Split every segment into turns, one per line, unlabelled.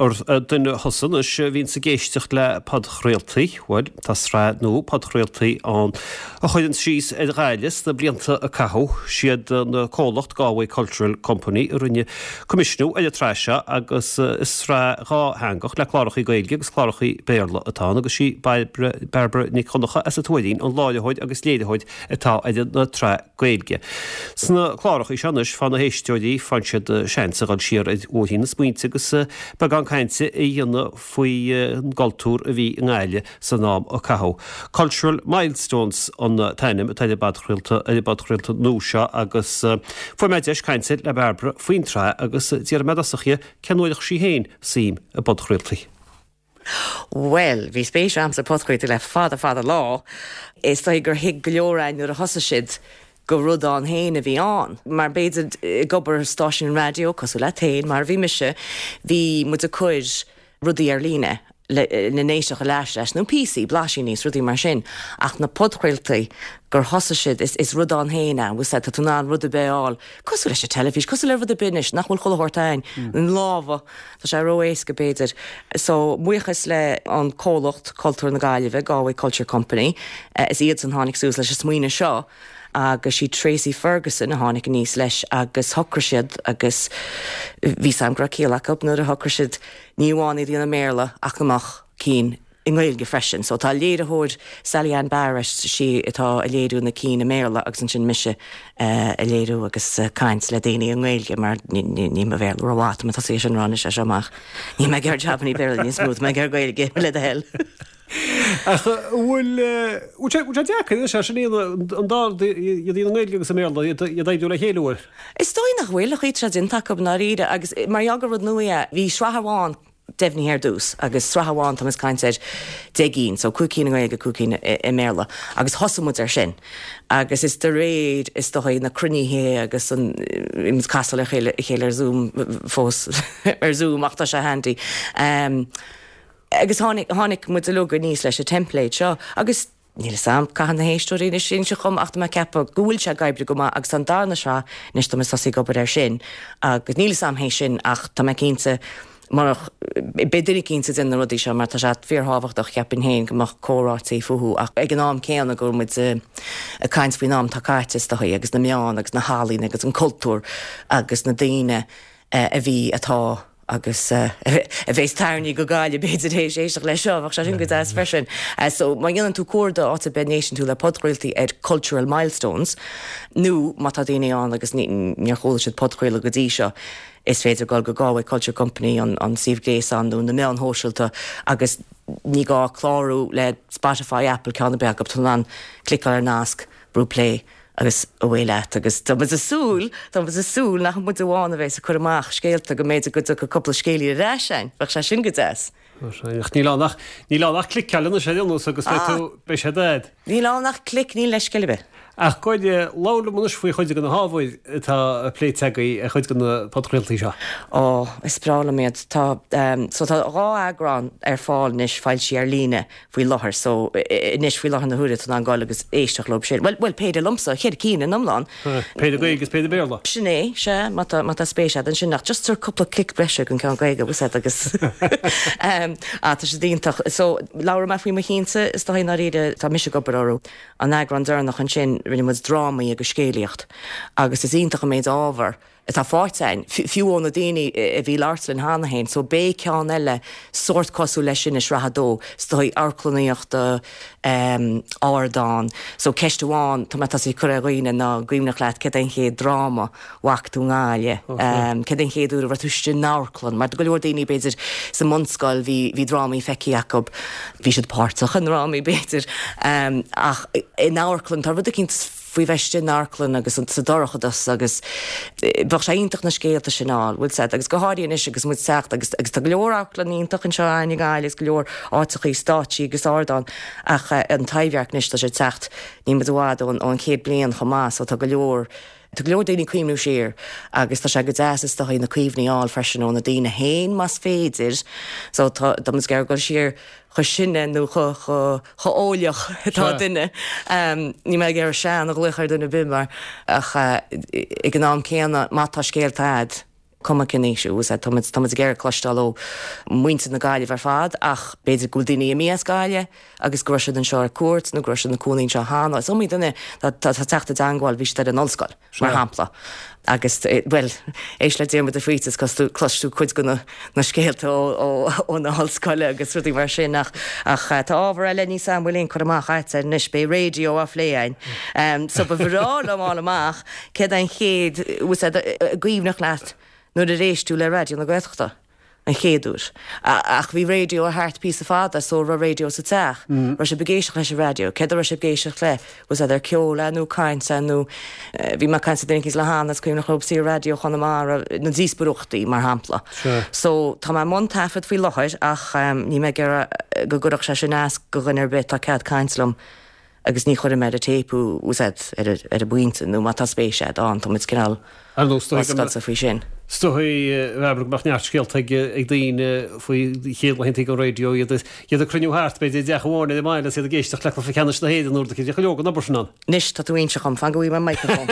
Gur duine thusa anois a bhíonns ag éisteacht le podchraoltaí, bhuel, tá sraith nua podchraoltaí ann a chuireann síos ar Ghaillimh sna blianta a caitheadh. Siad an comhlacht Galway Cultural Company a rinne coimisiúnú ar an tsraith seo agus is sraith dhátheangach le clárachaí Gaeilge agus clárachaí Béarla atá ann agus sí Bairbre Nic Dhonncha as an Tuairín an láithreoir agus léiritheoir atá ar an tsraith Gaeilge. Sna clárachaí seo anois, faigheann na héisteoirí, faigheann siad seans a dhul siar ar bhóithrín na smaointe agus beagán cainte a dhéanamh faoin gcultúr a bhí i nGaillimh san am a caitheadh. Cultural Milestones an t-ainm atá ar an bpodchraolta ar an bpodchraolta nua seo agus fuair mé deis cainte le Bairbre faoin tsraith agus d'iarr mé i dtosach dhi cén uair a chuir sí féin suim i bpodchraoltaí.
Bhuel, bhí spéis a'msa i podchraoltaí le fada fada lá. Is dóigh gur thuig go leor a'inn nuair a thosaigh siad gur rud ann féin a bhí ann. Mar b'fhéidir ag obair stáisiún raidió, cosúil leat féin, mar a bhí mise, bhí muid ag cur rudaí ar líne le lena n-éisteacht ar ais leis, nó píosaí, blaisíní is rudaí mar sin. Ach na podchraoltaí, gur thosaigh siad, is is rud ann féin é, bhfuil 's a'd, tá tú in ann rud ar bith a fháil, cosúil leis an teilifís, cosúil le rud ar bith anois, nach bhfuil chuile shórt a'inn, in lámha. Tá sé ró-éasca, b'fhéidir. So, buíochas le an comhlacht Cultúr na Gaillimhe, Galway Culture Company, is iadsan tháinig suas leis an smaoineamh seo agus sí Tracey Ferguson a tháinig aníos leis agus shocraigh siad agus bhí 's a'm go raibh ciall acu nuair a shocraigh siad ní amháin iad a dhéanamh i mBéarla ach go mbeadh cinn i nGaeilge freisin. So tá léiritheoir Sally Ann Barrett, sí atá ag léiriú na cinn i mBéarla agus ansin mise ag léiriú agus caint le daoine i nGaeilge mar níl mo Bhéarla rómhaith, tá mé tosaithe sin a rá anois as seo amach. Níl mé ag iarraidh jabannaí Béarla níos mó, tá mé ag iarraidh Gaeilge le do thoil.
Ach bhfuil bhfuil sé bhfuil sé deacair anois é sin a dhéanamh an dá rud iad i nGaeilge agus i mBéarla iad a oibriú le chéile bhfuil?
Is dóigh nach bhfuil, an chaoi atá sé déanta acu i ndáiríre agus mar gheall gur rud nua é, bhí sraith amháin deimhnithe ar dtús agus sraith amháin tá muid ag caint ar 10 gcinn, so 5 cinn i nGaeilge, 5 cinn i mBéarla agus thosaigh muid ar sin agus is de réir is dóigh na cruinnithe agus an muid ag casadh le chéile a chéile ar Zoom fós ar Zoom ach tá sé handy. Um, agus tháinig, tháinig muid uilig aníos leis an template seo agus Níl 'fhios a'm, caithfidh na héisteoirí anois inse dhom ach tá mé ag ceapadh go bhfuil sé ag oibriú go maith agus tá an darna sraith anois tá mé ag tosaí ag obair air sin agus níl 'fhios a'm théis sin ach tá mé cinnte murach, beidh duine eicínt ag déanamh na rudaí seo mar tá sé fíorthábhachtach cheapfainn féin go mbeadh comhráití fúthu ach ag an am céanna go bhfuil muid ag caint faoin am atá caite is dóigh agus na meáin agus na healaíona agus an cultúr agus na daoine a bhí, atá agus a bheas tarraingthe go Gaillimh b'fhéidir théis éisteacht leis seo, bheadh sé sin go deas freisin. So má dhéanann tú cuardach áit ar bith a n-éisteann tú le podchraoltaí ar Cultural Milestones nó má tá daoine ann agus níor chuala siad podchraoladh go dtí seo, is féidir dul go Galway Culture Company, an suíomh gréasáin nó na meáin shóisialta agus ní gá clárú le Spotify, Apple, ceann ar bith acu, tá tú in ann cliceáil ar nasc, brú play agus away leat agus tá muid ag súil, tá muid ag súil nach muid amháin a bheas ag cur amach scéalta go mb'fhéidir go dtiocfaidh cúpla scéilín ar ais a'inn, bheadh sé sin go deas.
Ach níl ann ach, níl ann ach cliceáil anois ar aon nós agus beidh tú, beidh sé agat.
Níl ann ach clic, níl leithscéal ar bith.
Ach goidé, labhair liom anois faoi chuid de na hábhair atá pléite agaibh ar chuid de na podchraoltaí seo.
Ó, is breá liom iad. Tá, so tá 2 eagrán ar fáil anois foilsithe ar líne faoi láthair so anois faoi láthair na huaire tá tú in ann goil agus éisteacht leo sin. Bhuel, bhuel, péire liomsa, cheithre cinn in iomlán.
Péire Gaeilge is péire Béarla.
Sin é, sea, má tá, má tá spéis agat ansin ach just tabhair cúpla clic breise don ceann Gaeilge, bhfuil 's agat agus ah tá siad iontach. So labhróidh mé faoi mo chinnse is dóigh i ndáiríre tá mise ag obair orthu. An eagrán deireanach ansin rinne muid drámaí agus scéalaíocht agus is iontach an méid ábhar atá faighte againn, fiú ó na daoine a bhí ag labhairt linn cheana féin. So beidh ceann eile sórt cosúil leis sin i sraith a dó, is dóigh, amharclannaíochta, ardán. So ceist amháin tá mé tosaithe ag cur ar dhaoine ná an cuimhneach leat céard é an chéad dráma a bhfaca tú i nGaillimh? Céard é an chéad uair a raibh tú istigh in amharclann? Mar do go leor daoine b'fhéidir sa mbunscoil bhí bhí drámaí feicthe acu, bhí siad páirteach i ndrámaí b'fhéidir, ach in amharclann tá rud eicínt faoi bheith istigh in amharclann agus sa dorchadas agus bheadh sé iontach na scéalta sin a fháil, bhfuil 's agat, agus go háirithe anois agus muid ag teacht agus agus tá go leor amharclann iontach anseo againn i nGaillimh agus go leor áiteachaí, stáitsí agus ardáin ach an Taibhdhearc anois tá sé ag teacht, níl muid i bhfad ón ón chéad bliain chomh maith so tá go leor, tá go leor daoine ag cuimhniú siar agus tá sé go deas is dóigh na cuimhní a fháil freisin ó na daoine féin más féidir so tá tá muid ag iarraidh dul siar chomh sine nó chomh eolaíoch atá duine. Níl mé ag iarraidh sean a ghlaoch ar dhuine ar bith mar ach ag an am céanna má tá scéalta a'd. Cuma cén aois thú, tá muid, tá muid ag iarraidh cloisteáil ó mhuintir na Gaillimhe ar fad ach b'fhéidir go bhfuil daoine imithe as Gaillimh agus go raibh siad anseo ar cuairt nó go raibh siad ina cónaí anseo cheana. Is iomaí duine atá ag teacht i dteangmháil, bhí siad ar an ollscoil, mar shampla, agus, bhuel, éist le Diarmuid de Faoite is cloisfidh tú cuid de na scéalta ó na hollscoile agus rudaí mar sin ach ach tá ábhar eile níos an bhfuil aon cur amach agat air anois, beidh raidió á phlé againn. So ba bhreá liom fháil amach Céard é an chéad, bhfuil sé i gcuimhneach leat nuair a d'éist tú le Raidió na Gaeltachta an chéad uair? Ach bhí raidió thart píosa fada so raibh raidió sa teach. Raibh sibh ag éisteacht leis an raidió? Céard a raibh sibh ag éisteacht le? Was that ar ceol é nó caint é nó bhí mé ag caint le duine eicínt le hAnna is cuimhneach leob saor Raidió Chonamara na díospóireachtaí mar shampla. So tá mé i mbun taifead faoi láthair ach níl mé ag iarraidh go gcuirfeadh sé sin as go dhuine ar bith tá cead caint liom. agus ní chuirfidh mé ar an téip thú, bhfuil a fhios agat, ar an bpointe, nó má tá spéis agat ann, tá muid cineál
Ar nós,
oscailte faoi sin.
Is dóigh, a Bhairbre, go mbeadh neart scéalta ag daoine faoi chéad laethanta an raidió, iad ag cruinniú thart, b'fhéidir, i dteach amháin ar an mbaile agus iad ag éisteacht le cluiche ceannais na hÉireann uair bhí go leor den obair sin ann.
Anois, tá tú ag inse dhom, fan go bhfaighidh mé microphone.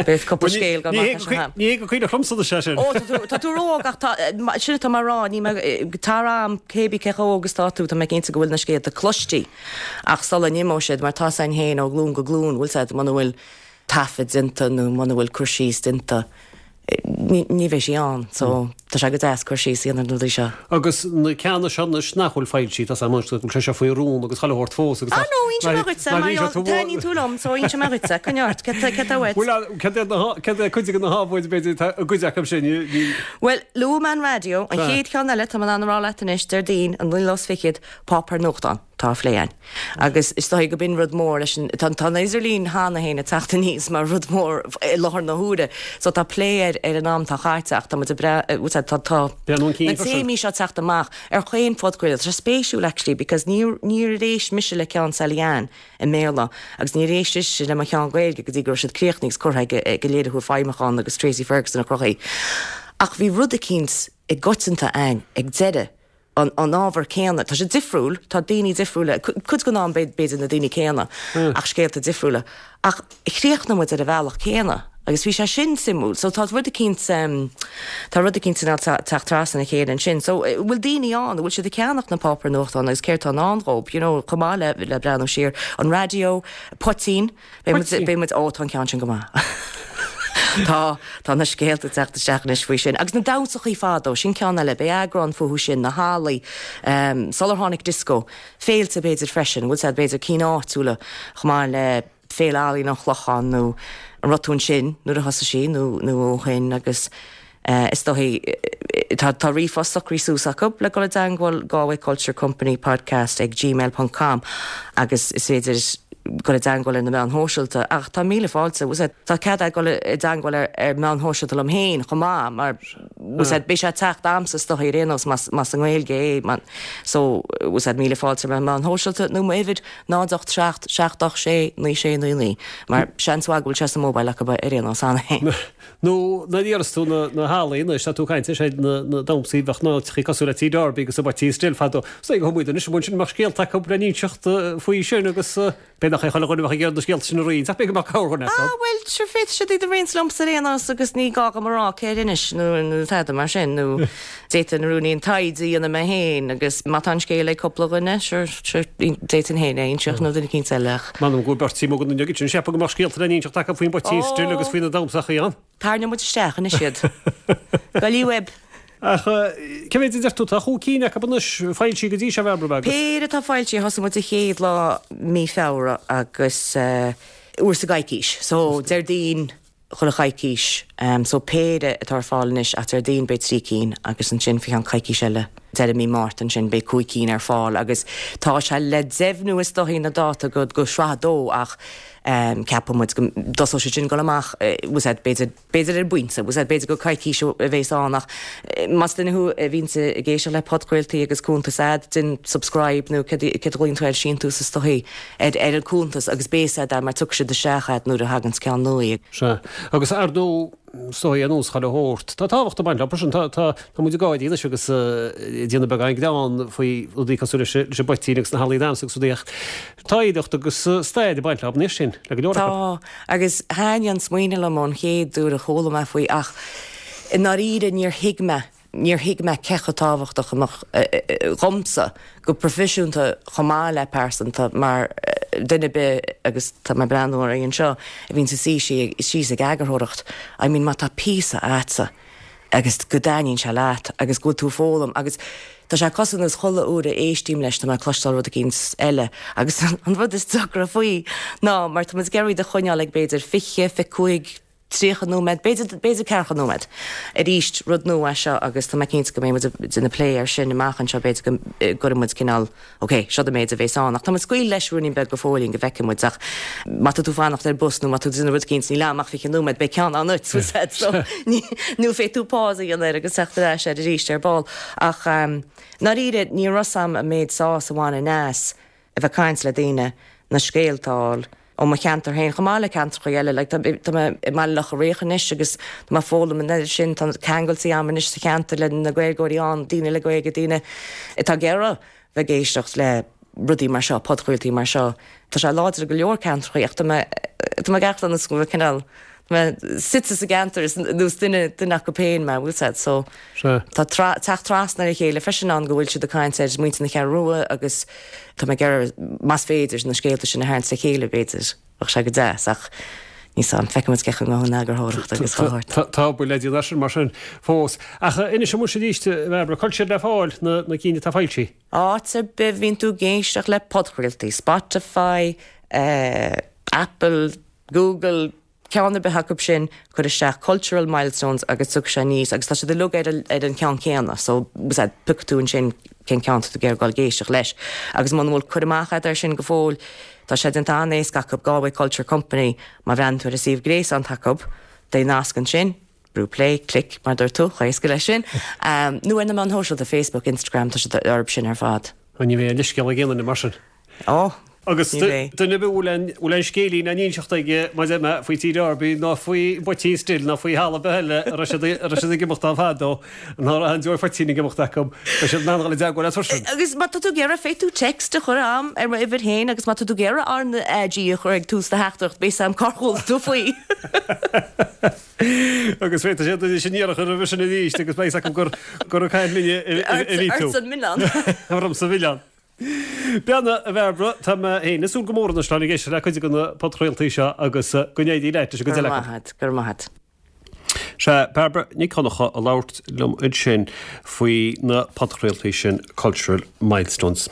Beidh cúpla scéal go amach as seo.
Ní hé go cuimhneach liomsa anois é sin.
Ó, tá tú ró-óg ach tá, sin atá mé a rá, ní mé, tar am, cébí cé chomh óg is tá tú, tá mé cinnte go bhfuil na scéalta cloiste. Ach sula n-imeoidh siad, mar tá 's againn féin ó ghlúin go glúin, bhfuil 's agat, muna bhfuil taifead déanta nó muna bhfuil cur síos déanta, ní bheidh sí ann. So, tá sé go deas cur síos a dhéanamh ar na rudaí seo.
Agus na ceanna seo anois nach bhfuil foilsithe, tá 's agam anois go bhfuil sé seo faoi rún agus chuile shórt fós
agus Ah no, inseoidh mé dhuitse, mar gheall, taitníonn tú liom, so inseoidh mé dhuitse, coinnigh ort, céard tá uait?
Bhuel, céard é na, céard é cuid de na hábhair, b'fhéidir, atá i gcuid acu sin, ní.
Bhuel, luaigh mé an raidió, an chéad cheann eile, tá mé in ann a rá leat anois, Déardaoin, an naoú lá is fichead, Páipéar nuachtáin atá á phlé againn agus is dóigh go b'in rud mór leis an, tá an idirlíon cheana féin ag teacht aníos mar rud mór i láthair na huaire so tá plé air ar an am atá caite ach tá muid ag breathnú, tá, tá
na
téamaí seo ag teacht amach ar chaon phodchraoladh. Tá sé spéisiúil actually because níor, níor éist mise le ceann Sally Ann i mBéarla agus níor éist sise le mo cheann Gaeilge go dtí go raibh siad críochnaithe agus curtha ag ag an léiritheoir feidhmiúcháin agus Tracey Ferguson a chruthaigh. Ach bhí rud eicínt i gcoitianta againn ag deireadh an ábhar céanna. Tá sé difriúil, tá daoine difriúla, cuid den am b'fhéidir na daoine céanna ach scéalta difriúla. Ach chríochnaigh muid ar an bhealach céanna agus bhí sé sin suimiúil. So tá rud eicínt, tá rud eicínt cineál teacht trasna a chéile ansin. So bhfuil daoine ann, an bhfuil siad ag ceannach na páipéir nuachtáin agus céard atá i ndán dhób, you know, chomh maith le le breathnú siar. An raidió, poitín. Beidh muid, beidh muid, ó tá an ceann sin go maith. Tá, tá na scéalta ag teacht isteach anois faoi sin. Agus na damhsachaí fadó, sin ceann eile, beidh eagrán fúthu sin, na hallaí, sular tháinig disco, féilte b'fhéidir freisin, bhfuil 's a'd, b'fhéidir cinn áitiúla chomh maith le Féile Ealaíon an Chlocháin nó an raibh tú ansin nuair a thosaigh sí nó, nó ó shin agus. Is dóigh, tá tá ríomhphost socraithe suas acu le dul i dteangmháil, Galway Culture Company Podcast ag gmail ponc com agus is féidir dul i dteangmháil ar na meáin shóisialta ach tá míle fáilte, bhfuil 's a'd, tá cead a'd dul i dteangmháil ar ar meáin shóisialta liom féin chomh maith mar bhfuil 's a'd, beidh sé ag teacht a'msa is dóigh ar aon nós más más i nGaeilge é so bhfuil 's a'd, míle fáilte ar na meáin shóisialta nó m'uimhir 0 8 7 7 8 6 9 6 9 9 mar seans mhaith go bhfuil sé sa mobile acu ar aon nós cheana féin.
Nó nuair a iarras tú na hallaí anois, tá tú ag caint ar siad na damhsaí bheadh na háiteachaí cosúil le Tí Darby agus an Poitín Stil fadó. Is dóigh go muid anois amuigh ansin mbeadh scéalta acu le n-inseacht faoi sin agus b'fhéidir nach é chuile dhuine a bheadh ag iarraidh na scéalta sin a roinnt ach b'fhéidir go mbeadh corrdhuine acu.
Ah bhuel, sure féadfaidh siad iad a roinnt liomsa ar aon nós agus ní gá dhom a rá cé a d'inis nó nó tada mar sin nó d'fhéadfainn rúinín taighde a dhéanamh mé féin agus má tá an scéal ag cúpla dhuine, sure, sure, d'fhéadfainn féin é a inseacht nó duine eicínt eile ach.
M'anam go bhfuil beirt amuigh againn inniu sin, ceapaim go mbeadh scéalta le n-inseacht acu faoin bPoitín Stil agus faoi na damhsachaí ann.
Tarraingeoidh muid isteach anois iad. Goillí uaibh.
Ach cé mhéid a deir tú? Tá chúig cinn acu anois foilsithe go dtí seo, a Bhairbre, agus.
Péire atá foilsithe, thosaigh muid an chéad lá mí Feabhra agus uair sa gcoicís. So Déardaoin, chuile choicís. So péire atá ar fáil anois ach Déardaoin beidh 3 cinn agus ansin faoi cheann coicís eile, deireadh mí Márta ansin beidh 5 cinn ar fáil agus tá sé le deimhniú is dóichí na dáta go go sraith a dó ach ceapann muid go dtosóidh siad sin ag dul amach bhfuil 's a'd b'fhéidir b'fhéidir ar an bpointe bhfuil 's a'd b'fhéidir go coicís a bhéas ann ach más duine thú a bhíonns ag éisteacht le podchraoltaí agus cuntas a'd déan subscribe nó céard a ghlaonn tú air síntiús is dóichí ar ar an cuntas agus beidh 's a'd mar tiocfaidh siad isteach a'd nuair a thaganns ceann nua.
Sea. Agus ar ndóigh, is dóigh ar nós chuile shórt, tá tábhacht ag baint leo sin. Tá, tá, tá muid ag gáirí anois agus ag déanamh beagán greann faoi rudaí cosúil leis, leis an bpoitín agus na hallaí damhsa agus rudaí ach tá oidhreacht agus stair ag baint leo anois sin, le go leor
acu. Tá, agus thaitnigh an smaoineamh liom ón chéad uair a chuala mé faoi ach. I ndáiríre níor thuig mé, níor thuig mé cé chomh tábhachtach a mbeadh dhomsa, go proifisiúnta chomh maith le pearsanta, mar duine ar bith, agus tá mé ag breathnú oraibh anseo, a bhíonns ag suí síos ag eagarthóireacht, I mean má tá píosa a'dsa agus go dtaitníonn sé leat agus go bhfuil tú ag foghlaim agus tá sé cosúil nós chuile uair a éistím leis tá mé ag cloisteáil rud eicínt eile agus an rud is deacra faoi ná mar tá muid ag iarraidh iad a choinneáil ag b'fhéidir 20, 25, 30 nóiméad, b'fhéidir, b'fhéidir ceathracha nóiméad. Arís, rud nua é seo agus tá mé cinnte go mbeidh muid ag déanamh plé air sin amach anseo, b'fhéidir go gcuirfidh muid cineál, ok, seo an méid a bhéas ann. Ach tá muid ag scaoileadh leis ruainnín beag go fóillín go bhfeicfidh muid ach má tá tú fanacht ar bus nó má tá tú ag déanamh rud eicínt níl am ach 20 nóiméad, beidh ceann ann duit, bhfuil 's a'd, so ní, nó féadfaidh tú pause a dhéanamh air agus teacht ar ais air arís ar ball. Ach ndáiríre, ní raibh 's a'm an méid sásamh a bhaineann as. a bheith ag caint le daoine, na scéalta a fháil ó mo cheantar féin chomh maith le ceantracha eile. Like, tá mé i mBaile Locha Riach anois agus tá mé ag foghlaim an oiread sin, tá ceangailtí a'm anois sa cheantar le na Gaeilgeoirí ann, daoine le Gaeilge, daoine atá ag iarraidh bheith ag éisteacht le rudaí mar seo, podchraoltaí mar seo. Tá sé láidir i go leor ceantracha ach tá mé, tá mé ag amharc nós go bhfuil cineál, tá mé suite sa gceantar is nós duine, duine acu féin mé, bhfuil 's a'd, so. Tá teacht trasna ar a chéile freisin ann go bhfuil siad ag caint ar muintir na Ceathrún Rua agus tá mé ag iarraidh, más féidir, na scéalta sin a tharraingt le chéile, b'fhéidir. Bheadh sé go deas ach níl 's a'm, feicfidh muid cén chaoi a ngabhfaidh an eagarthóireacht agus chuile shórt.
Tá obair le déanamh air sin mar sin fós. Ach inis muis arís, a Bhairbre, cá bhfuil siad le fáil, na cinn atá foilsithe?
Áit ar bith a bhíonn tú ag éisteacht le podchraoltaí, Spotify, Apple, Google, ceann ar bith acu sin, cuir isteach Cultural Milestones agus tiocfaidh sé aníos agus tá siad uilig ar ar an cheann céanna so bhfuil 's a'd, piocfaidh tú ansin cén ceann tá tú ag iarraidh dul ag éisteacht leis. Agus muna bhfuil cur amach agat air sin go fóill, tá sé déanta an-éasca acu, Galway Culture Company, má bhreathnaíonn tú ar an suíomh gréasáin atá acu, beidh nasc ansin, brú play, click, mar a dúirt tú, chomh héasca leis sin. Nó ar na meáin shóisialta, Facebook, Instagram, tá siad orthu sin ar fad.
Ní bheidh aon leithscéal ag aon duine mar sin.
Ó,
Agus duine ar bith a bhfuil aon bhfuil aon scéilín á n-inseacht aige maidir le faoi Tír Arby ná faoi Phoitín Stil ná faoi thalamh ar bith eile a raibh siad a raibh siad ag imeacht ann fadó, ná raibh aon deoir phoitín ag imeacht acu, beidh siad in ann dhul i dteagmháil leat freisin.
Agus má tá tú ag iarraidh, féadfaidh tú text a chur a'm ar m'uimhir féin agus má tá tú ag iarraidh R na AG a chur ag tús do theachtaireacht, beidh 's a'm cár chuala tú faoi.
Agus féadfaidh siad anois an iarracht a chur roimhe sin arís agus beidh 's acu gur gur ag caint linne a bhí tú.
Ortsa an milleán.
Ormsa an milleán. Beannacht, a Bhairbre, tá mé féin ag súil go mór anois le ag éisteacht le cuid de na podchraoltaí seo agus go n-éirí leat leis an gcuid
eile acu. Go raibh maith agat, go raibh maith agat.
Sea, Bairbre Nic Dhonncha ag labhairt liom ansin faoi na podchraoltaí sin Cultural Milestones.